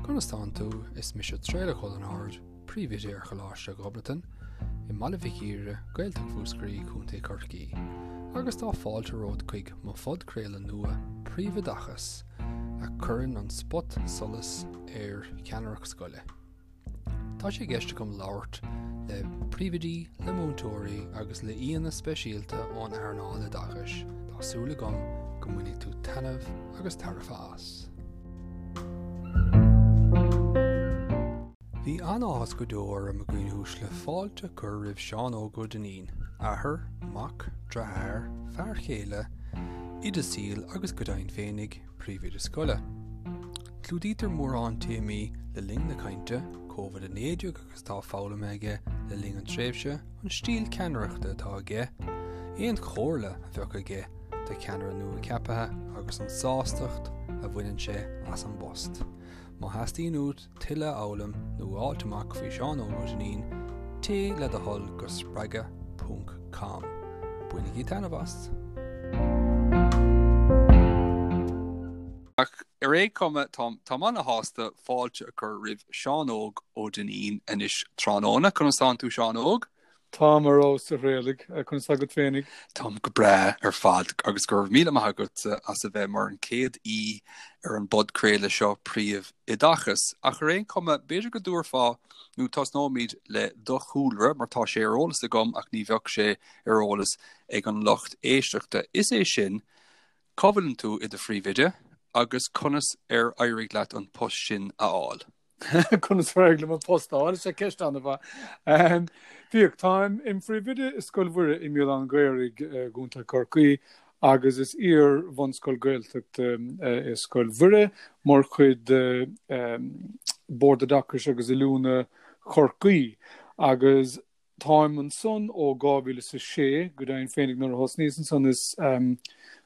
Conas tánn tú? Is mise Traolach Ó Lionáird, Príomhoide ar Choláiste Ghobnatan i mBaile Mhic Íre, Gaeltacht Mhúscraí, Contae Chorcaí. Agus tá fáilte romhat chuig mo phodchraoladh nua, Príomhoideachas, a chuireann an spot solais ar cheannaireacht scoile. Tá sé i gceist agam labhairt le príomhoidí, le múinteoirí agus le aíonna speisialta ón earnáil oideachais. Tá súil agam go mbainfidh tú taitneamh agus tairbhe as. Bhí an-áthas go deo orm, a dhaoine uaisle, fáilte a chur roimh Seán Óg Ó Duinnín, athair, mac, deartháir, fear chéile, oide saoil agus go deimhin féinig, príomhoide scoile. Clúdaítear mórán téamaí le linn na cainte, Covid-19 agus atá foghlamtha aige le linn an tréimhse, an stíl ceannaireachta atá aige, aon chomhairle a bheadh aige do cheannaire nua ceaptha agus an sástacht a bhaineann sé as an bpost. Má theastaíonn uait tuilleadh a fhoghlaim nó a fháilt amach faoi Seán Óg Ó Duinnín, téigh le do thoil go spreagadh ponc com. Bainigí taitneamh as! Ach ar aon chuma, táim ana-shásta fáilte a chur roimh Seán Óg Ó Duinnín anois tráthnóna. Conas tánn tú, Seán Óg? Táim ar fheabhas, a Thraolaigh. Conas tá agat féinig? Táim go breá ar fad agus go raibh míle maith agatsa as a bheith mar an chéad aoi ar an bpodchraoladh seo Príomhoideachas. Ach ar aon chuma, b'fhéidir go dtabharfá, nó tosnóimid le do chúlra mar tá sé ar eolas agam ach ní bheadh sé ar eolas ag an lucht éisteachta. Is é sin, cá bhfuileann tú i do phríomhoide agus conas ar éirigh leat an post sin a fháil? Conas ar éirigh liom an post a fháil? Is é ceist an-mhaith. Bhíodh, táim im phríomhoide i Scoil Mhuire i mBéal Átha an Ghaorthaidh i gContae Chorcaí agus is iar-bhunscoil Gaeltachta é Scoil Mhuire mar chuid de Bord Oideachais agus Oiliúna Chorcaí agus táim ansan ó 2006, go deimhin féinig nuair a thosnaíos ansan is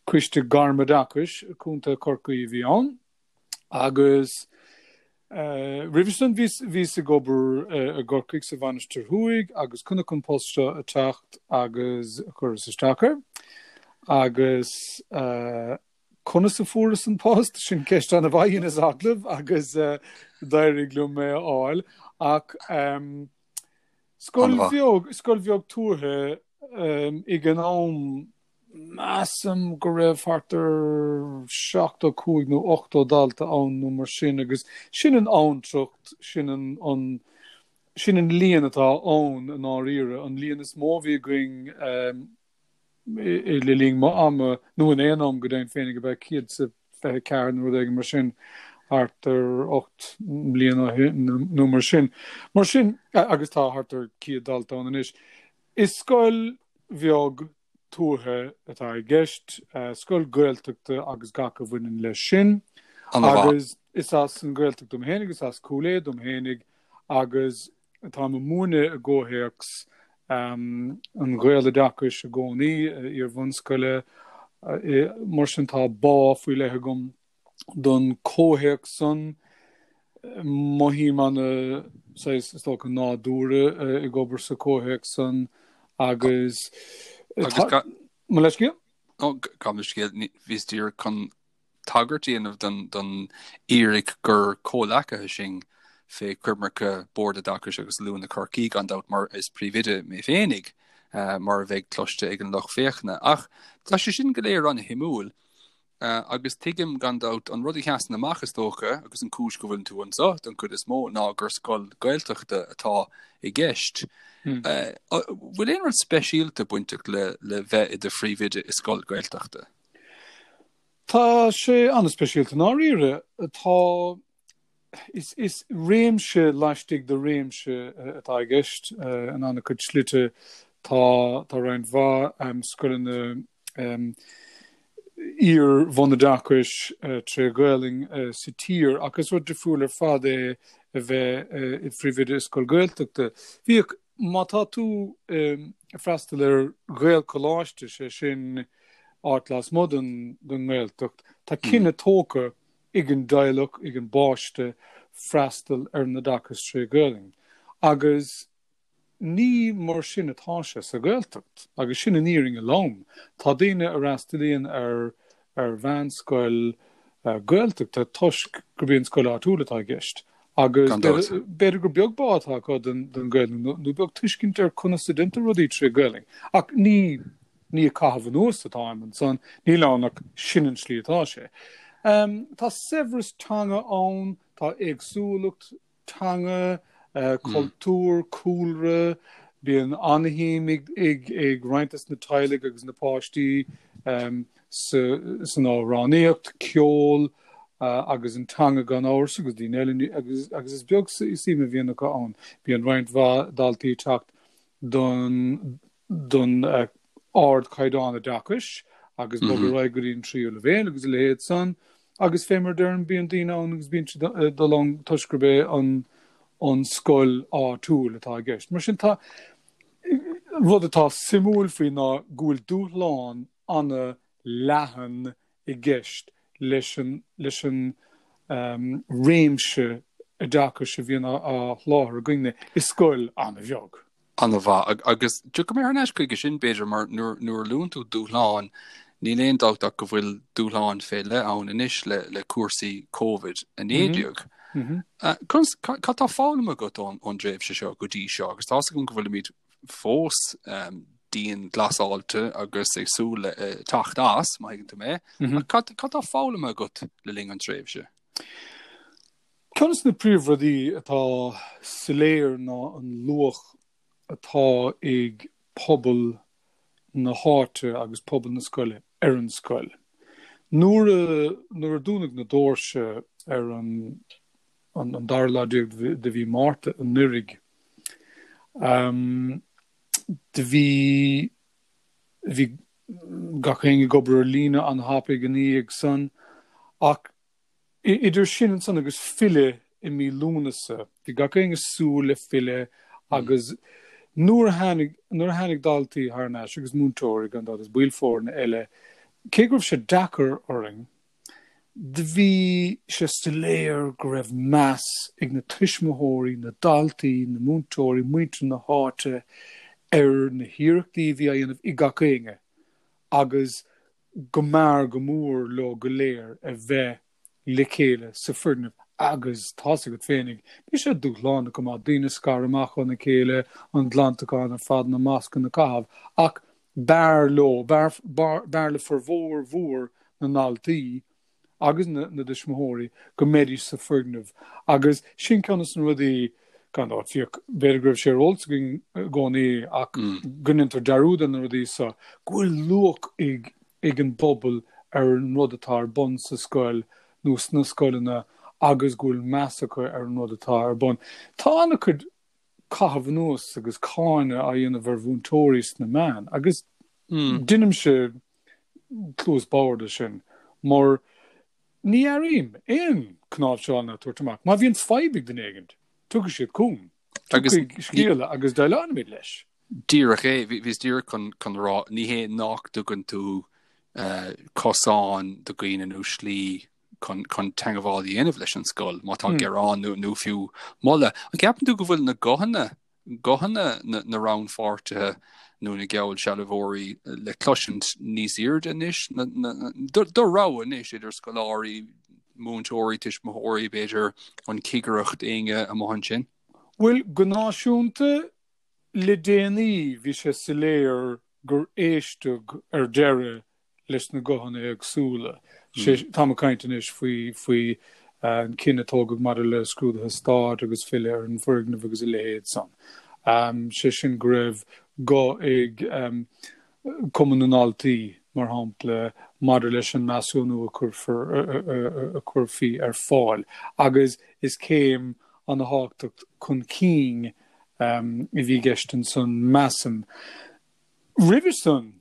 Coiste Gairmoideachais Contae Chorcaí a bhí ann. Agus roimhe sin bhíos ag obair i gCorcaigh sa Mhainistir Thuaidh agus chonac an post seo ag teacht agus chuireas isteach air. Agus conas a fuaireas an post? Sin ceist an-mhaith, dheineas agallamh agus d'éirigh liom é a fháil. Ach scoil bheag, scoil bheag tuaithe ag an am Measaim go raibh thart ar 75 nó 80 dalta ann nó mar sin agus sin an abhantracht, sin an, sin an líon atá ann i ndáiríre. An líon is mó a bhí againn le linn m'ama, nó in aon am go deimhin féinig, ab ea 124 nó rud éigin mar sin, thart ar 8 mbliana ó shin nó mar sin. Mar sin, agus tá thart ar 100 dalta ann anois. Is scoil bheag tuaithe atá i gceist, scoil Gaeltachta agus gach a bhaineann leis sin. Agus is as an Ghaeltacht dom fhéinig, is as Cúil Aodha dom fhéinig agus táim ag múineadh i gcomhthéacs an Ghaeloideachais i gcónaí, iar-bhunscoile. Mar sin tá bá faoi leith agam don comhthéacs san. Mothaím ana saghas, is dócha, nádúrtha ag obair sa comhthéacs san agus tá. Mo leithscéal? Ó, gabh mo leithscéal, bhíos díreach chun tagairt a dhéanamh don fhíric gur comhleacaithe sinn fé choimirce Bord Oideachais agus Oiliúna Chorcaí, gan dabht, mar is príomhoide mé féinig, mar a bheidh cloiste ag an lucht féachana. Ach tá sé sin go léir an-shuimiúil. Agus tuigim, gan dabht, an rud a sheasann amach, is dócha, agus an cúis go bhfuileann tú anseo, don chuid is mó, ná gur scoil Gaeltachta atá i gceist. Bhfuil aon rud speisialta bainteach le le bheith i do phríomhoide i scoil Gaeltachta? Tá sé an-speisialta i ndáiríre. Tá. Is réimse laistigh de réimse atá i gceist in an-chuid slite. Tá roinnt mhaith scoileanna iar-bhunoideachais tré Ghaelainn sa tír ach is rud difriúil ar fad é a bheith i phríomhoide i scoil Ghaeltachta. Bhíodh, má tá tú ag freastal ar Ghaelcholáiste, sé sin áit lasmuigh den nGaeltacht, tá cinneadh tógtha ag an dteaghlach, ag an bpáiste freastal ar an oideachas tré Ghaelainn. Agus ní mar sin atá sé sa Ghaeltacht. Agus sin an fhírinne lom. Tá daoine a fhreastalaíonn ar ar mheánscoil. Gaeltachta toisc gurb í an scoil áitiúil atá i gceist agus b'fhéidir gur beag bá atá acu don Ghaelainn nó beag tuiscint ar conas a déantar rudaí tré Ghaelainn. Ach ní ní ag caitheamh anuas atáim ansan, níl ann ach sin an slí atá sé. Tá saibhreas teanga ann, tá éagsúlacht teanga, cultúr, cúlra, bíonn an-shuim ag roinnt des na teaghlaigh agus na páistí san amhránaíocht, ceol agus an teanga gan amhras agus daoine eile agus is beag suim a bhíonn acu ann. Bíonn roinnt mhaith daltaí ag teacht don don ardchaighdeán oideachais agus bogadh ar aghaidh go dtí an tríú leibhéal agus a leithéid san agus fé mar a deirim bíonn daoine ann agus bíonn siad ag dul ann toisc gurb é an an scoil áitiúil atá i gceist. Mar sin tá rud atá suimiúil faoi ná go bhfuil dúshlán ana leathan i gceist leis an leis an réimse oideachais a bhíonn á sholáthar againne i scoil an-bheag. An-mhaith. Agus tiocfaidh mé thar n-ais chuige sin, b'fhéidir, mar nuair a luann tú dúshláin, níl aon dabht ach go bhfuil dúshláin fé leith ann anois le cúrsaí Covid-19. Conas, cad tá foghlamtha agat ón dtréimhse seo go dtí seo? Agus tá's agam go bhfuilimid fós dianghlasáilte agus ag súil le teacht as, má thuigeann tú mé. Ach cad tá foghlamtha agat le linn an tréimhse? Ceann de na príomhrudaí atá soiléir ná an luach atá ag pobal na háite agus pobal na scoile ar an scoil. Nuair a nuair a dúnadh na doirse ar an an dara lá déag de mhí Márta anuraidh, do bhí bhí gach éinne ag obair ar líne an-thapaidh ina dhiaidh san ach Idir sin ansan agus filleadh i mí Lúnasa, bhí gach éinne ag súil le filleadh agus nuair a tháinig, nuair a tháinig daltaí thar n-ais agus múinteoirí gan dabht agus baill foirne eile, cé go raibh sé deacair orainn, do bhí sé soiléir go raibh meas ag na tuismitheoirí, na daltaí, na múinteoirí, muintir na háite ar na hiarrachtaí a bhí á dhéanamh ag gach éinne agus go mb'fhearr go mór leo go léir a bheith le chéile sa foirgneamh agus tá's agat féinig, bhí sé dúshlánach go maith, daoine scartha amach óna chéile, an glantachán ar fad, na mascanna a chaitheamh, ach b'fhearr leo, b'fhearr le formhór mhór na ndaltaí agus na dtuismitheoirí go mbeidís sa foirgneamh agus sin ceann de na rudaí, gan dabht, fiach, b'fhéidir go raibh sé ar eolas againn i gcónaí ach go ndéantar dearúd ar na rudaí seo, go bhfuil luach ag ag an bpobal ar an rud atá ar bun sa scoil nó sna scoileanna agus go bhfuil meas acu ar an rud atá ar bun. Tá an-chuid caitheamh anuas agus cáineadh á dhéanamh ar mhúinteoirí sna meáin agus deinimse cluas bhodhar de sin, mar ní airím aon cnáimhseáil ná tabhairt amach. Má bhíonn fadhb ag duine éigin, tiocfaidh siad chugam, tiocfaidh scéala agus déileálfaimid leis. Díreach é, bhíos díreach chun a rá, ní hé nach dtugann tú cosán do dhaoine nó slí chun teagmháil a dhéanamh leis an scoil má tá gearán nó fiú moladh. An gceapann tú go bhfuil na guthanna guthanna na rannpháirtithe nó na geallsealbhóirí le cloisint níos airde anois, do rogha anois idir scoláirí, múinteoirí, tuismitheoirí, b'fhéidir an chigireacht, éinne amuigh ansin? Bhuel, go náisiúnta, le déanaí bhí sé soiléir gur éisteadh ar deireadh leis na guthanna éagsúla. Táim ag caint anois faoi faoi an cinneadh a tógadh maidir le scrúduithe stáit agus filleadh ar an bhfoirgneamh agus a leithéid san. Sé sin go raibh guth ag Cumann na nDaltaí, mar shampla, maidir leis an measúnú a cuirfear a chuirfí ar fáil agus is céim an-thábhachtach chun cinn a bhí i gceist ansan, measaim. Roimhe san,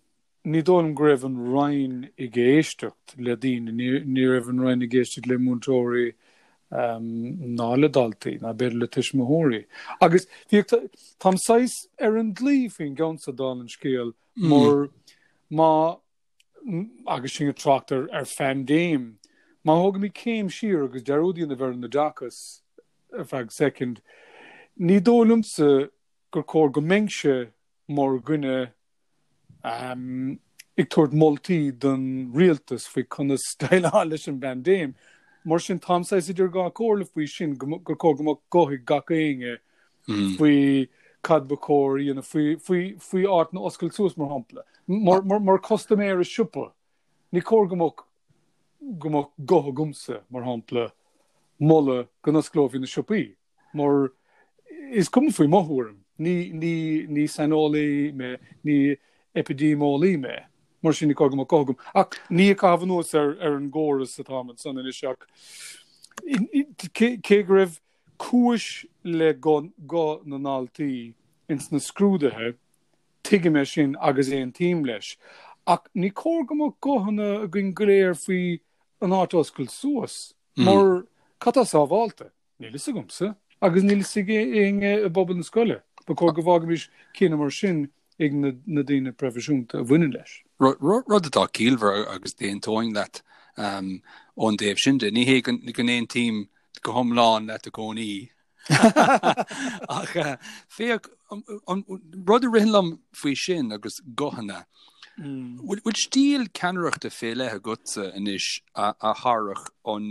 Ní dóigh liom go raibh an Roinn ag éisteacht le daoine, ní raibh an Roinn ag éisteacht le múinteoirí ná le daltaí, ná b'fhéidir le tuismitheoirí. Agus bhíodh, táim saghas ar an dlaoi faoin gceann seo dála an scéil, mar má, agus sinn ag trácht ar ar phaindéim, má thógaimid céim siar agus dearúd a dhéanamh ar an oideachas ar feadh soicind, ní dóigh liomsa gur chóir go mbeinnse mar dhuine. Ag tabhairt moltaí don rialtas faoi conas déileáil leis an bpaindéim. Mar sin, táim saghas idir dhá chomhairle faoi sin, gur chóir go mbeadh guth ag gach éinne faoi cad ba chóir a dhéanamh, faoi, faoi, faoi áiteanna a oscailt suas, mar shampla. Mar, mar, mar custaiméir i siopa, ní cóir go mbeadh, go mbeadh guth agamsa, mar shampla, moladh go n-osclófaí na siopaí. Mar is cuma faoi mo thuairim, ní, ní, ní saineolaí mé, ní eipidéimeolaí mé, mar sin ní cóir go mbeadh guth agam. Ach ní ag caitheamh anuas ar, ar an gcóras atáim ansan anois ach cé, cé go raibh cúis le guth, guth na ndaltaí ins na scrúduithe, tuigim é sin agus aontaím leis. Ach ní cóir go mbeadh guthanna againn go léir faoi an áit a oscailt suas, mar cad tá sábhálta? Níl fhios agamsa, agus níl fhios ag éinne i bpobal na scoile. Ba chóir go bhfágaimis cinneadh mar sin ag na daoine proifisiúnta a bhaineann leis. Rud atá ciallmhar agus d'aontóinn leat ón dtaobh sin de. Ní hé go n-aontaím go hiomlán leat i gcónaí. Ach féach, an rud a ritheann liom faoi sin agus guthanna, bhfuil stíl ceannaireachta fé leith agatsa anois a thabharfadh an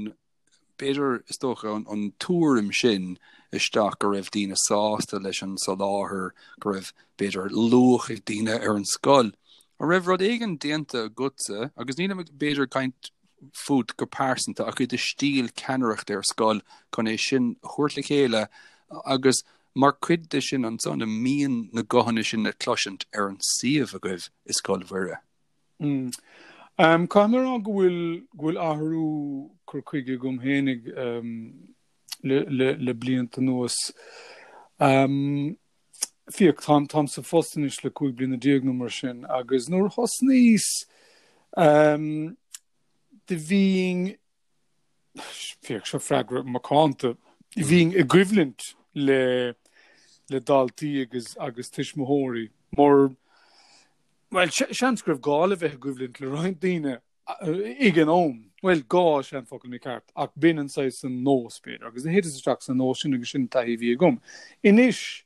b'fhéidir, is dócha, an tuairim sin isteach go raibh daoine sásta leis an soláthar, go raibh, b'fhéidir, luach ag daoine ar an scoil. An raibh rud éigin déanta agatsa, agus nílim ag, b'fhéidir, ag caint fút go pearsanta, ach i do stíl ceannaireachta ar scoil chun é sin a thabhairt le chéile agus mar chuid de sin ansan, an mbíonn na guthanna sin le cloisint ar an suíomh agaibh i Scoil Mhuire? Caithfidh mé a rá go bhfuil go bhfuil athrú cur chuige agam fhéinig le le le blianta anuas. Féach, táim táim sa phost anois le 15 bliana nó mar sin agus nuair a thosnaíos do bhínn Féach, seo freagra macánta. Bhínn i gcoimhlint le le daltaí agus agus tuismitheoirí mar bhuel, seans go raibh gá le bheith i gcoimhlint le roinnt daoine ag an am. Bhuel, gá is ea an focal mícheart, ach b'in an saghas an nós, b'fhéidir, agus thiteas isteach sa nós sin agus sin an taithí a bhí agam. Anois,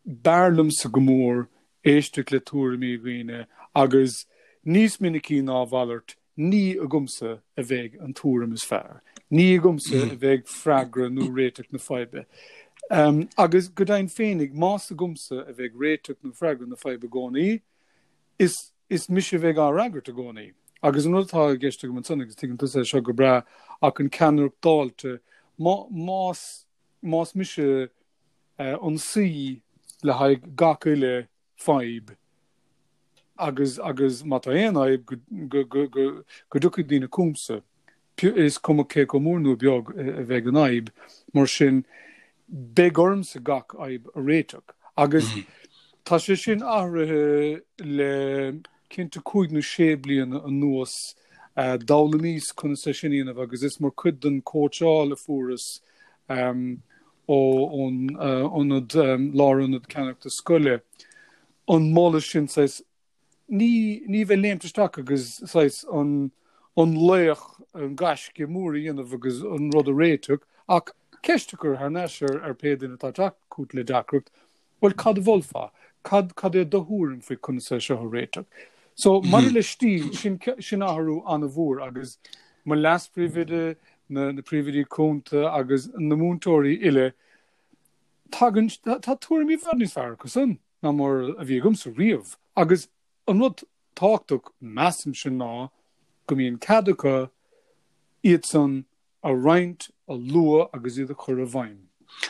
b'fhearr liomsa go mór éisteacht le tuairimí dhaoine agus níos minicí ná a mhalairt, Ní agamsa a bheidh an tuairim is fearr. Ní agamsa a bheidh freagra nó réiteach na faidhbe. Agus go deimhin féinig, más agamsa a bheidh réiteach nó freagra na faidhbe i gcónaí, is is mise a bheidh á fhreagairt i gcónaí. Agus an rud atá i gceist agam ansan, agus tuigeann tusa é seo go breá, ach an ceannaireacht dáilte, má más más mise an saoi le haghaidh gach uile fadhb agus agus má tá aon fhadhb go go go go go dtiocfaidh daoine chugamsa, is cuma cé chomh mór nó beag a bheidh an fhadhb, mar sin beidh ormsa gach fhadhb a réiteach. Agus tá sé sin athraithe le cinnte cúig nó sé bliana anuas, d'fhoghlaimíos conas é sin a dhéanamh agus is mar chuid den chóitseáil a fuaireas ón ionad, lárionad ceannaireachta scoile, an moladh sin saghas, ní, ní bheith léimt isteach agus saghas an, an laoch, an gaisce mór a dhéanamh agus an rud a réiteach, ach ceist a chur thar n-ais ar, ar pé duine atá ag teacht chugat le deacracht, bhuel cad a mholfá? Cad, cad é do thuairim faoi conas é seo a réiteach? So, maidir le stíl, sin, sin athrú an-mhór agus mo leas-phríomhoide, na, na príomhoidí cúnta agus na múinteoirí uile, tagann, tá tuairimí i bhfad níos fearr acu san ná mar a bhí agamsa riamh. Agus an rud tábhachtach, measaimse, ná go mbíonn cead acu iad san a roinnt, a lua agus iad a chur i bhfeidhm.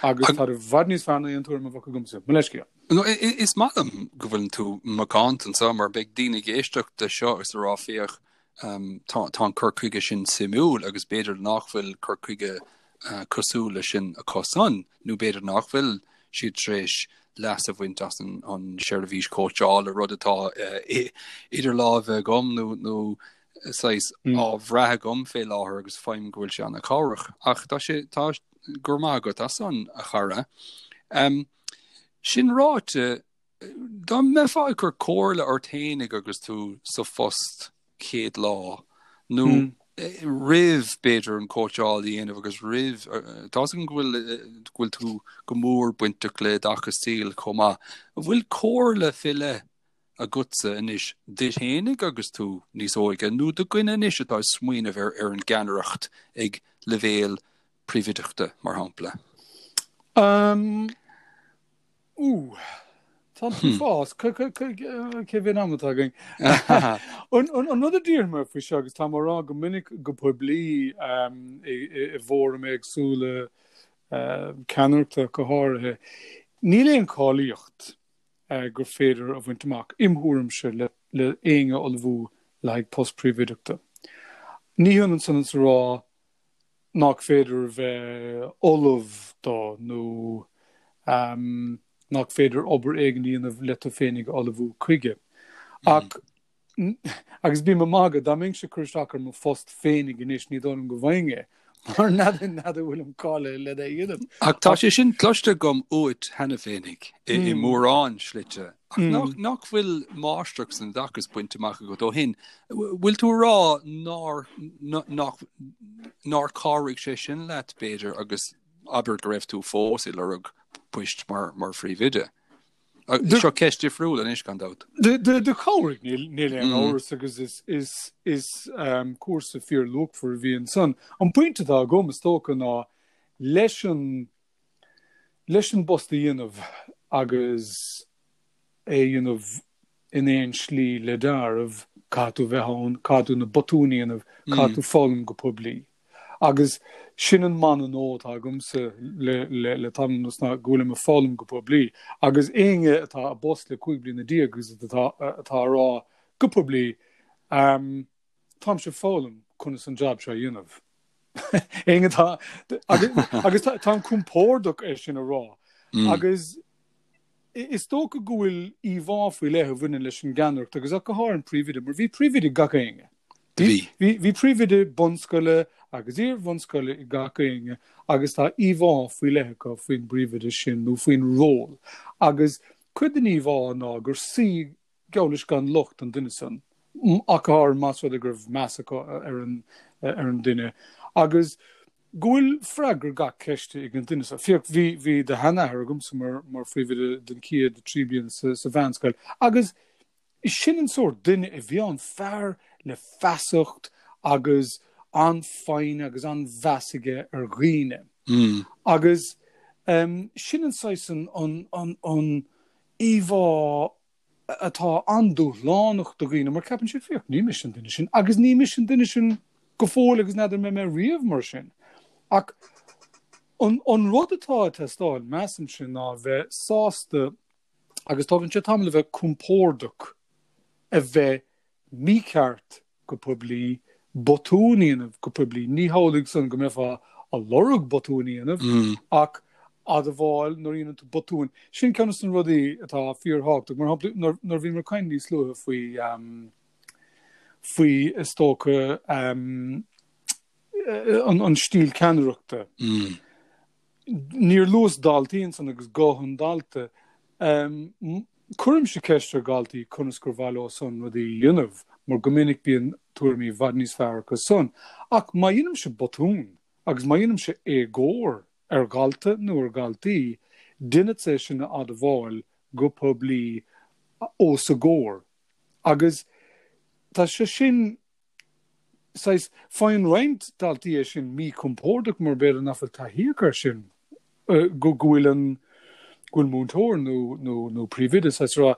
Agus tá i bhfad níos fearr ná aon tuairim a bheadh agamsa. Mo leithscéal. No, is maith liom go bhfuileann tú macánta anseo mar beidh daoine ag éisteacht le seo agus ag rá féach tá tá an cur chuige sin suimiúil agus b'fhéidir nach bhfuil cur chuige cosúil leis sin acusan nó b'fhéidir nach bhfuil siad tar éis leas a bhaint as an an seirbhís cóitseála, rud atá idir lámha agam nó nó saghas á bhrath agam fé láthair agus faighim go bhfuil sé an-chabhrach. Ach tá sé tá go raibh maith agat as san a chara. Um, sin ráite, dá mbeifeá ag cur comhairle ort fhéinig agus tú sa phost chéad lá nó mm. roimh b'fhéidir an cóitseáil a dhéanamh agus roimh tá a fhios agam go bhfuil go bhfuil tú go mór bainteach le oideachas saoil chomh maith. An bhfuil comhairle fé leith? agatsa anois duit fhéinig agus tú níos óige nó do dhuine anois atá ag smaoineamh ar ar an gceannaireacht ag leibhéal príomhoideachta, mar shampla? Um, Ú, tá tú fás, cé mhéad am atá againn? An rud a déarfaidh mé faoi seo, agus táim á rá go minic go poiblí i bhfóraim éagsúla ceannaireachta go háirithe, níl aon cháilíocht gur féidir a bhaint amach, im thuairimse, le éinne a ullmhú le haghaidh post príomhoideachta. Ní hionann san is a rá nach féidir a bheith ullamh dó nó nach féidir obair éigin a dhéanamh le tú féinig a ullmhú chuige. Ach, agus bím ag magadh, dá mbeinnse ag cur isteach ar mo phost féinig anois, ní dóigh liom go bhfaighinn é, mar n'fheadar an bhfuilim cáilithe le é a dhéanamh. Ach tá sé sin cloiste agam uait cheana féinig i mórán slite. Ach nach bhfuil máistreacht san oideachas bainte amach agat ó shin? Bhfuil tú a rá nár nach nár chabhraigh sé sin leat, b'fhéidir, agus abair go raibh tú fós ag lorg poist mar mar phríomhoide? Seo ceist difriúil anois, gan dabht. Do chabhraigh, níl aon amhras agus is is is cúrsa fíorluachmhar a bhí ansan. An pointe atá agam, is dócha, ná leis an leis an bpost a dhéanamh agus é a dhéanamh in aon slí le deáramh, caithfidh tú bheith ann, caithfidh tú na botúin a dhéanamh, caithfidh tú foghlaim go poiblí. Agus sin an mana nua atá agamsa le le tamall anuas ná go bhfuilim ag foghlaim go poiblí. Agus éinne atá i bpost le 15 bliana agus atá atá a rá go poiblí, táimse ag foghlaim conas an jab seo a dhéanamh. Éinne atá agus táim compordach é sin a rá. Agus is dócha go bhfuil íomhá faoi leith a bhaineann leis an gceannaireacht agus ach go háirithe an príomhoide, mar bhí príomhoide ag gach éinne. Bhí. Bhí príomhoide bunscoile agus iar-bhunscoile ag gach éinne agus tá íomhá faoi leith acu faoin bpríomhoide sin nó faoin ról. Agus cuid den íomhá ná gur saoi geall leis gan locht an duine san, ach go háirithe más rud é go raibh meas acu ar an ar an duine, agus go bhfuil freagra gach ceiste ag an duine so. Féach, bhí bhí do sheanathair agamsa mar mar phríomhoide den chéad 3 bliana sa sa mheánscoil, agus sin an sórt duine a bhí ann, fear le feasacht agus an-fhoighne agus an-mheas aige ar dhaoine. Agus sin an saghas an an an an íomhá atá an-dúshlánach do dhaoine mar ceapann siad, féach, ní mise an duine sin agus ní mise an duine sin go fóill agus n'fheadar an mbeidh mé riamh mar sin. Ach an, an rud atá ag teastáil, measaimse, ná a bheith sásta agus tógann sé tamall a bheith compordach a bheith mícheart go poiblí, botún a dhéanamh go poiblí. Ní hamhlaidh san go mbeifeá a lorg botúin a dhéanamh, ach admháil nuair a dhéanann tú botúin. Sin ceann de na rudaí atá fíorthábhachtach. Mar shampla, nuair a bhíomar ag caint níos luaithe faoi, faoi is dócha, an stíl ceannaireachta. Níor luas daltaí ansan agus guth an dalta. Cuirimse ceist ar dhaltaí conas gur mhaith leo san rudaí a dhéanamh, mar go minic bíonn tuairimí i bhfad níos fearr acu san. Ach má dhéanaimse botún agus má dhéanaimse éagóir ar dhalta nó ar dhaltaí, déanfadsa é sin a admháil go poiblí os a gcomhair. Agus tá sé sin saghas, faigheann roinnt daltaí é sin míchompordach mar b'fhéidir nach bhfuil taithí acu air sin, go bhfuil an, go bhfuil múinteoir nó, nó, nó príomhoide saghas ag rá,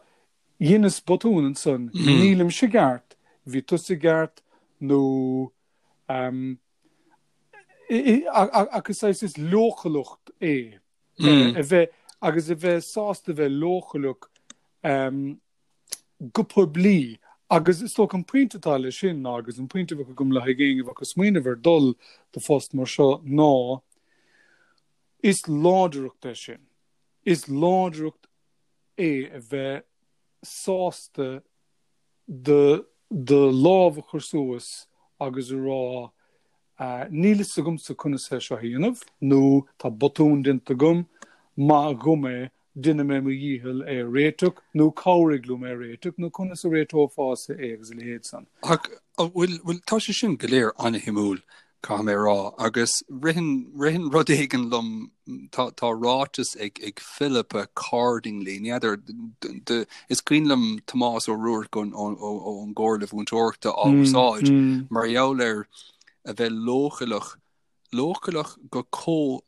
dheineas botún ansan, nílimse i gceart, bhí tusa i gceart nó ehm, ach is saghas, is leochaileacht é a bheith, agus a bheith sásta a bheith leochaileach ehm, go poiblí agus is dócha an pointe atá leis sin ná, agus an pointe a bheadh agam le haghaidh éinne a bheadh ag smaoineamh ar dul do phost mar seo ná, is láidreacht é sin. Is láidreacht é a bheith sásta do do lámh a chur suas agus a rá Níl fhios agamsa conas é seo a dhéanamh nó tá botún déanta agam, maith dhom é, déanfaidh mé mo dhícheall é a réiteach nó cabhraigh liom é a réiteach nó conas a réiteofása é agus a leithéid san. Ach, bhuel, bhuel, tá sé sin go léir an-shuimiúil. Caithfidh mé a rá. Agus ritheann, ritheann rud éigin liom, tá, tá ráiteas ag, ag Philippa Cardingley, ní fheadar, de, is cuimhin liom Tomás Ó Ruairc ón, ón, ón gComhairle Mhúinteoireachta á úsáid mar gheall ar a bheith leochaileach, leochaileach go comh,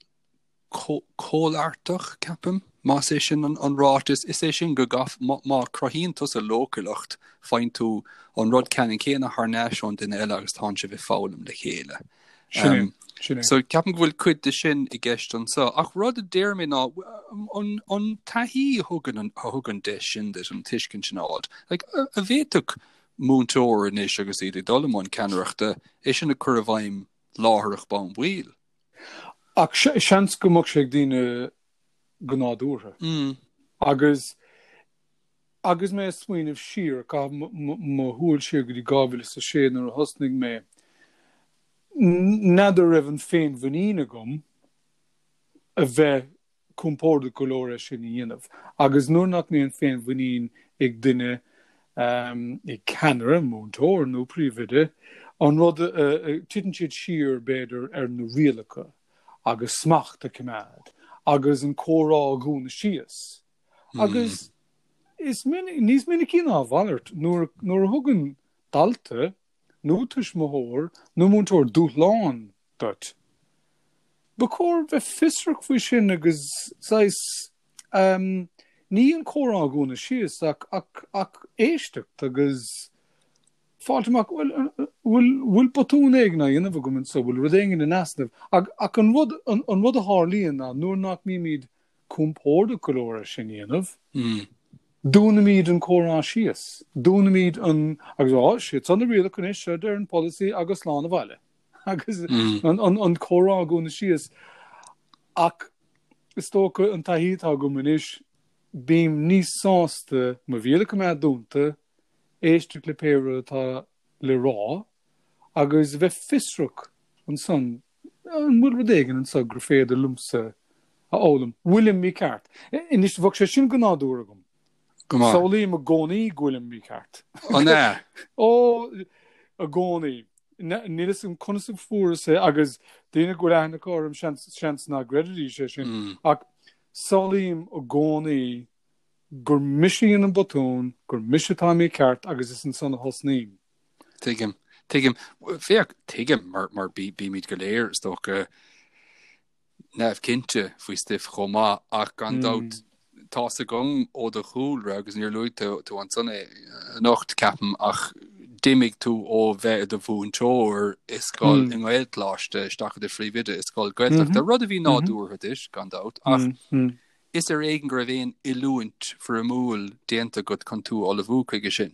comhlartach, ceapaim, más é sin an ráiteas. Is é sin go gcaith, má cruthaíonn tusa leochaileacht, faigheann tú an rud ceannann céanna thar n-ais ón duine eile agus tánn sibh ag foghlaim le chéile. Sin é, sin é. So ceapaim go bhfuil cuid de sin i gceist anseo. Ach rud a deir mé ná an, an taithí a thugann an, a thug an deis sin duit, an tuiscint sin a fháilt, like, an bhféadfadh múinteoir anois agus iad ag dul i mbun ceannaireachta, é sin a chur i bhfeidhm láithreach bonn baill? Ach seans go mbeadh sé ag daoine go nádúrtha. Agus agus mé ag smaoineamh siar, ag caitheamh mo shúil siar go dtí 2006 nuair a thosnaigh mé, n'fheadar raibh an féinmhuinín agam a bheith compordach go leor é sin a dhéanamh. Agus nuair nach mbíonn féinmhuinín ag duine, ag ceannaire, múinteoir nó príomhoide, an rud, titeann siad siar, b'fhéidir, ar na rialacha agus smacht a choimeád agus an comhrá a dhúnadh síos. Agus is minic, níos minicí ná a mhalairt, nuair a thugann dalta nó tuismitheoir nó múinteoir dúshlán duit. Ba chóir bheith fiosrach faoi sin agus saghas, ní an comhrá a dhúnadh síos ach, ach, ach éisteacht agus fáilt amach, bhuel, bhfuil, bhfuil botún éigin á dhéanamh agam anseo, bhfuil rud éigin in easnamh? Ach, ach an rud, an, an rud a tharlaíonn ná nuair nach mbímid compordach go leor é sin a dhéanamh, dúnaimid an comhrá síos, dúnaimid an, agus á, siad seo na rialacha anois, seo a deir an polasaí agus slán abhaile. Agus an comhrá a dhúnadh síos. Ach is dócha an taithí atá agam anois, bím níos sásta mo bhéal a choimeád dúnta, éisteacht le pé rud atá le rá agus a bheith fiosrach ansan, an bhfuil rud éigin anso gur féidir liomsa a fhoghlaim? Bhfuilim mícheart? Anois, bheadh sé sin go nádúrtha agam. Go maith. Samhlaím i gcónaí go bhfuilim mícheart. An ea? Ó, i gcónaí. Níl fhios agam conas a fuaireas é agus daoine go bhfuil aithne acu orm seans, seans nach gcreidfidís é sin. Ach samhlaím i gcónaí gur mise a dhein an botún, gur mise atá mícheart agus is ansan a thosnaím. Tuigim. Tuigim. Féach, tuigim mar, mar bí, bímid go léir, is dócha, neamhchinnte faoi stuif chomh maith ach gan dabht tá's agam ó do chúlra agus níor luaigh tú tú ansan é anocht ceapaim ach d'imigh tú ó bheith i do mhúinteoir i scoil i nGaelcholáiste isteach i do phríomhoide i scoil Gaeltachta, rud a bhí nádúrtha duit gan dabht ach is ar éigean go raibh aon oiliúint foirmiúil déanta agat chun tú a ullmhú chuige sin.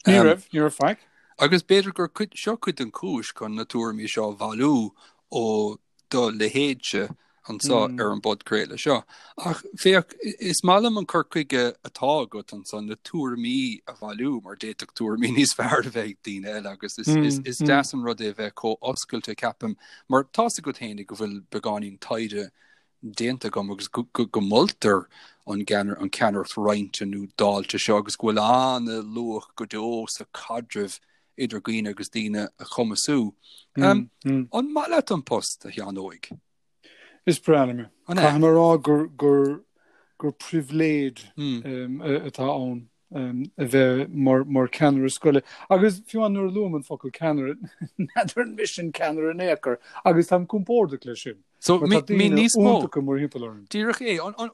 Ní raibh, ní raibh faic. Agus b'fhéidir gur cuid, seo cuid den chúis chun na tuairimí seo a bhailiú ó do leithéidse anso ar an bpodchraoladh seo. Ach féach, is maith liom an cur chuige atá agat ansan, na tuairimí a bhailiú, mar d'fhéadfadh tuairimí níos fearr a bheith ag daoine eile agus is, is, is deas an rud é a bheith chomh oscailte, ceapaim, mar tá's agat fhéinig go bhfuil beagáinín taighde déanta agam agus go moltar an ceannaireacht roinnte nó dáilte seo agus go bhfuil an-luach go deo sa chaidreamh idir dhaoine agus daoine a chumasú. An maith leat an post, a Sheáin Óig? Is breá liom é. Caithfidh mé a rá gur pribhléid atá ann. a bheith mar cheannaire scoile. Agus fiú amháin nuair a luaim an focal ceannaire, n'fheadar an mise an ceannaire in aon chor, agus táim compordach leis sin. So, Mar tá daoine níos mó. iontacha mórthimpeall orm. Díreach é. An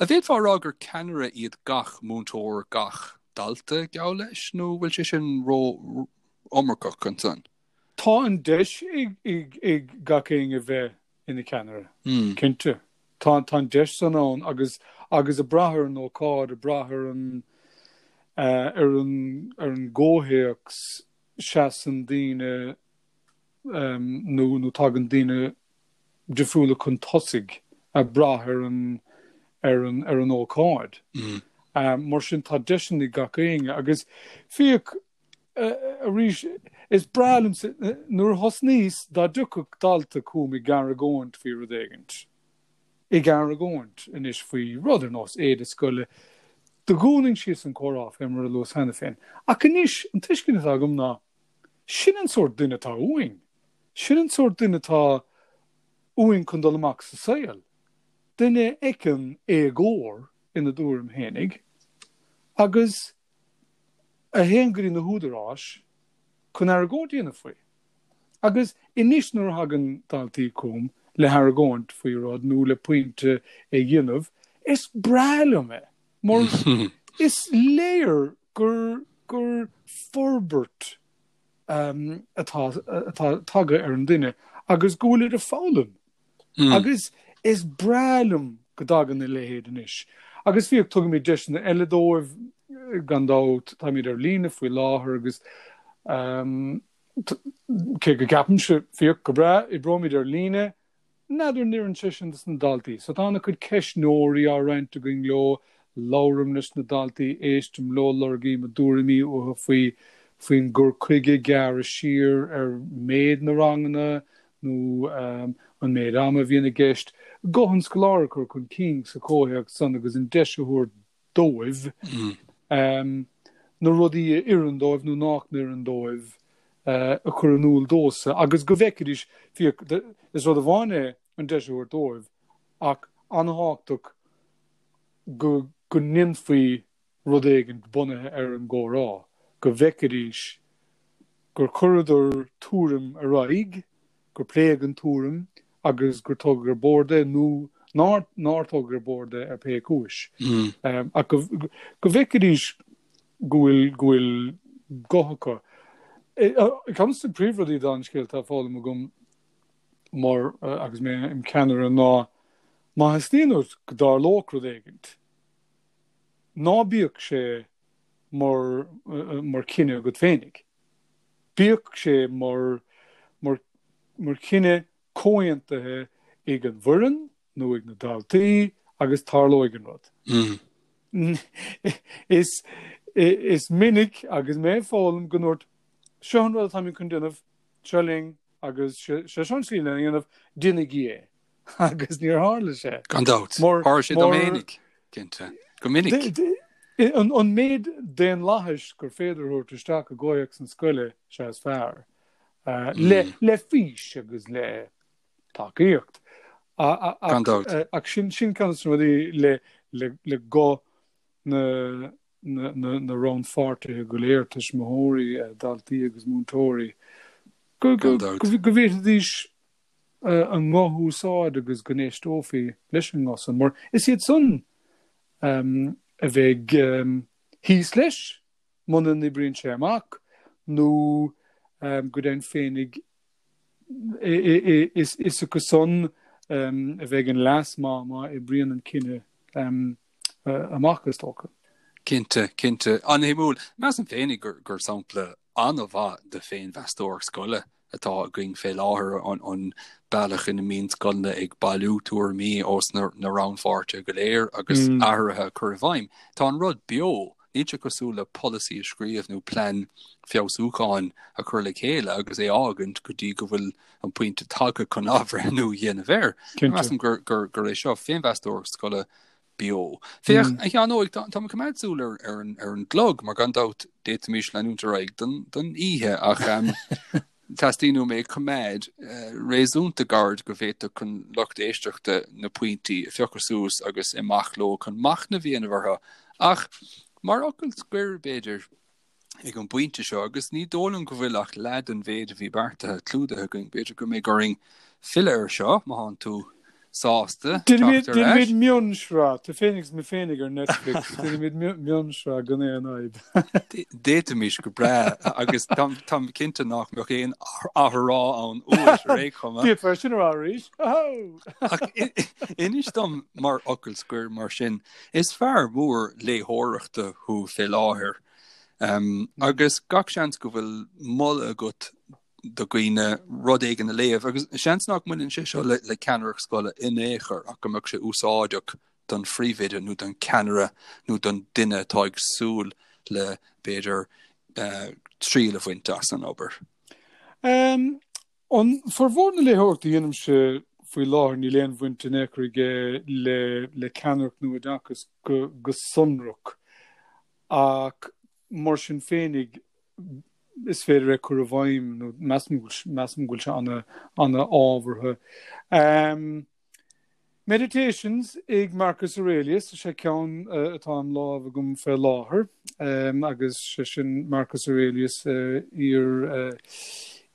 bhféadfá a rá gur ceannaire iad gach múinteoir, gach dalta, geall leis, nó bhfuil sé sin ró-iomarcach ansan? Tá an deis ag gach éinne bheith ina cheannaire, cinnte. Tá an deis san ann agus agus ag brath ar an ócáid, ag brath ar an ar an ar an gcomhthéacs, seasann daoine nó nó tagann daoine difriúla chun tosaigh ag brath ar an ar an ar an ócáid. Mar sin tá deiseanna ag gach éinne agus féach Arís, is breá liomsa, nuair a thosnaíos, dá dtiocfadh dalta chugam ag argóint faoi rud éigint, ag argóint anois faoi rud ar nós éide scoile, do dhúnainn síos an comhrá, fé mar a luas cheana féin. Ach anois, an tuiscint atá agam ná, sin an sórt duine atá uainn. Sin an sórt duine atá uainn chun dul amach sa saol, duine a fheiceann éagóir ina dtuairim fhéinig agus a théann go dtí na húdaráis chun argóint a dhéanamh faoi. Agus anois nuair a thagann daltaí chugam le hargóint faoi rud nó le pointe a dhéanamh, is breá liom é mar is léir gur gur forbairt atá atá tagtha ar an duine agus go bhfuilid ag foghlaim. Agus is breá liom go dtagann a leithéid anois. Agus fiach, tugaimid deiseanna eile dóibh, gan dabht, táimid ar líne faoi láthair agus cé go gceapaimse, fiach, go breá, oibreoimid ar líne, n'fheadar an oireann sé sin dos na daltaí. So tá an-chuid ceistneoirí á roinnt againn leo, labhraím leis na daltaí, éistim leo, lorgaím a dtuairimí uathu faoi faoin gcur chuige gearradh siar ar méid na ranganna, nó an méid ama a bhíonn i gceist, guth an scoláire a chur chun cinn sa chomhthéacs san agus an deis a thabhairt dóibh na rudaí a oireann dóibh nó nach n-oireann dóibh a chur in iúl domhsa agus go bhfeicfidís, fiach, is rud amháin é an deis a thabhairt dóibh ach an-thábhachtach go go ndéanfaí rud éigin bunaithe ar an gcomhrá, go bhfeicfidís gur chuireadar tuairim ar aghaidh, gur pléadh an tuairim agus gur tógadh ar bord é nó nár nár tógadh ar bord é ar pé cúis. Ach go go bhfeicfidís go bhfuil go bhfuil guth acu. Ceann de na príomhrudaí den scéal atá foghlamtha agam mar agus mé im cheannaire ná má theastaíonn uait go dtarlódh rud éigint, Ná bíodh sé mar mar chinneadh agat féinig. Bíodh sé mar mar mar chinneadh comhaontaithe ag an bhfoireann nó ag na daltaí agus tarlóidh an rud. Is is minic agus mé ag foghlaim go ndúirt seo an rud atáimid chun déanamh, seo linn agus sé seo an tslí lena dhéanamh, déanaigí é. agus níor tharla sé. Gan dabht. Tharla sé dom fhéinig, cinnte. Go minic. An méid daonlathais gur féidir a thabhairt isteach i gcomhthéacs na scoile, sea is fearr. Le fís agus le tacaíocht. Gan dabht. Ach sin ceann de na rudaí le guth na na rannpháirtithe go léir, tuismitheoirí, daltaí agus múinteoirí, go bhféadfaidís a nguth a úsáid agus go n-éisteofaí leis an nguth san, mar is iad san a bheidh thíos leis muna n-oibríonn sé amach nó go deimhin féinig is acu san a bheidh an leas má má oibríonn an cinneadh amach, is dócha. Cinnte, cinnte. An-shuimiúil. Measaim féinig gur sampla an-mhaith de féinmheastóireacht scoile atá againn fé láthair, an bealach ina mbíonn scoileanna ag bailiú tuairimí ós na rannpháirtithe go léir agus athruithe a chur i bhfeidhm. Tá an rud beo, níl sé cosúil le polasaí a scríobh nó plean feabhsúcháin a chur le chéile agus é a fhágaint go dtí go bhfuil an pointe tagtha chun athbhreithniú a dhéanamh air. Measaim gur é seo féinmheastóireacht scoile beo. Féach, a Sheáin Óig, tá mé ag coimeád súil ar ar an gclog, mar gan dabht d'fhéadfaimis leanúint ar aghaidh don don oíche, ach teastaíonn uaim é a choimeád réasúnta gairid go bhféadfadh an lucht éisteachta na pointí a phiocadh suas agus imeacht leo chun machnamh a dhéanamh orthu. Ach mar fhocal scoir, b'fhéidir, ag an bpointe seo, agus ní dóigh liom go bhfuil ach leath den mhéid a bhí beartaithe clúdaithe againn. B'fhéidir go mbeidh orainn filleadh air seo, má thánn tú sásta teacht ar ais. Déanfaimid mionsraith, tú féinig is mé féinig ar Netflix, déanfaimid mionsraith gan aon fhadhb. D'fhéadfaimis go breá, agus táim cinnte nach mbeadh aon athrá ann uait ar aon chuma. D'fhéadfá sin a rá arís. Ach inis dom mar fhocal scoir mar sin, is fear mór léitheoireachta thú fé láthair. Agus gach seans go bhfuil moladh agat do dhaoine rud éigin a léamh, agus seans nach mbaineann sé seo le ceannaireacht scoile in aon chor ach go mbeadh sé úsáideach don phríomhoide nó don cheannaire nó don duine atá ag súil le, b'fhéidir, triail a bhaint as an obair. An formhór na léitheoireachta a dhéanaimse faoi láthair níl aon bhaint in aon chor aige le le ceannaireacht nó oideachas go go sonrach ach mar sin féinig. Is féidir é cur i bhfeidhm nó measaim go measaim go bhfuil sé ana ana ábhartha. Meditations ag Marcus Aurelius, is é ceann atá im lámh agam fé láthair, agus sé sin Marcus Aurelius, iar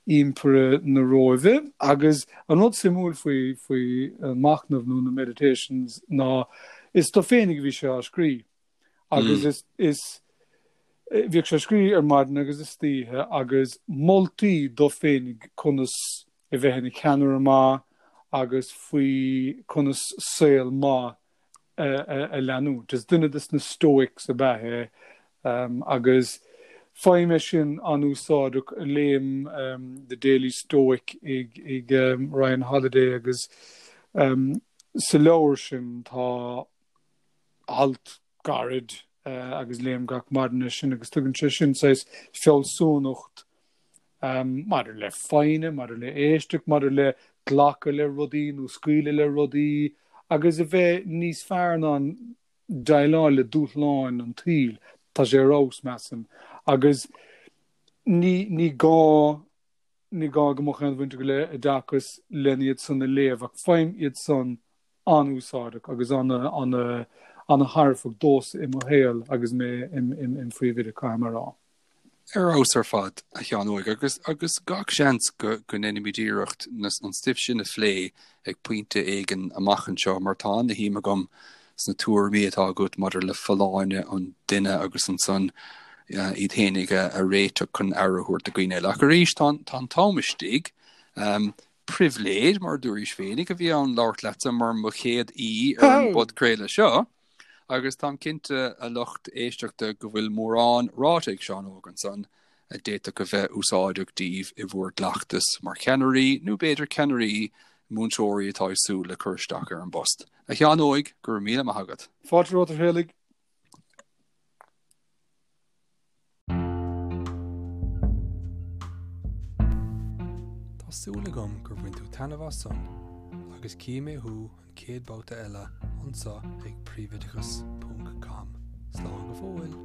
Impire na Róimhe. Agus an rud suimiúil faoi, faoi an machnamh nó na Meditations ná is dó féinig a bhí sé á scrí. Agus is, is, bhíodh sé á scrí ar maidin agus istoíche agus moltaí dó féinig conas a bheith ina cheannaire maith agus faoi conas saol maith a leanúint. Is duine de na Stoics ab ea é agus faighim é sin an-úsáideach. Léim The Daily Stoic ag Ryan Holiday agus sa leabhar sin tá alt gairid agus léim gach maidin é sin agus tugann sé sin saghas fealsúnacht maidir le foighne, maidir le éisteacht, maidir le glacadh le rudaí nó scaoileadh le rudaí agus a bheith níos fearr in ann déileáil le dúshláin an tsaoil. Tá sé ar fheabhas, measaim. Agus ní, ní gá, ní gá go mbeadh aon bhaint agat le oideachas len iad san a léamh ach faighim iad san an-úsáideach agus an-thairbheach domhsa i mo shaol agus mé im phríomhoide, caithfidh mé a rá. Ar fheabhas ar fad, a Sheáin Óig, agus agus gach seans go go ndéanfaimid iarracht an stuif sin a phlé ag pointe éigin amach anseo mar tá ana-shuim agam sna tuairimí atá agat maidir le folláine an duine agus ansan iad fhéinig a réiteach chun aire a thabhairt do dhaoine eile. Ach arís, tá an t-am istigh. Pribhléid, mar a dúraís féinig, a bhí ann labhairt leatsa mar mo chéad aoi ar an bpodchraoladh seo, agus táim cinnte, a lucht éisteachta, go bhfuil mórán ráite ag Seán Óg ansan a d'fhéadfadh a bheith úsáideach daoibh i bhur gcleachtas mar cheannairí, nó b'fhéidir ceannairí múinteoirí atá ag súil le cur isteach ar an bpost. A Sheáin Óig, go raibh míle maith agat. Fáilte romhat, a Thraolaigh. Tá súil agam gur bhain tú taitneamh as san agus cífidh mé thú an chéad babhta eile anseo ag príomhoideachas ponc com. Slán go fóill!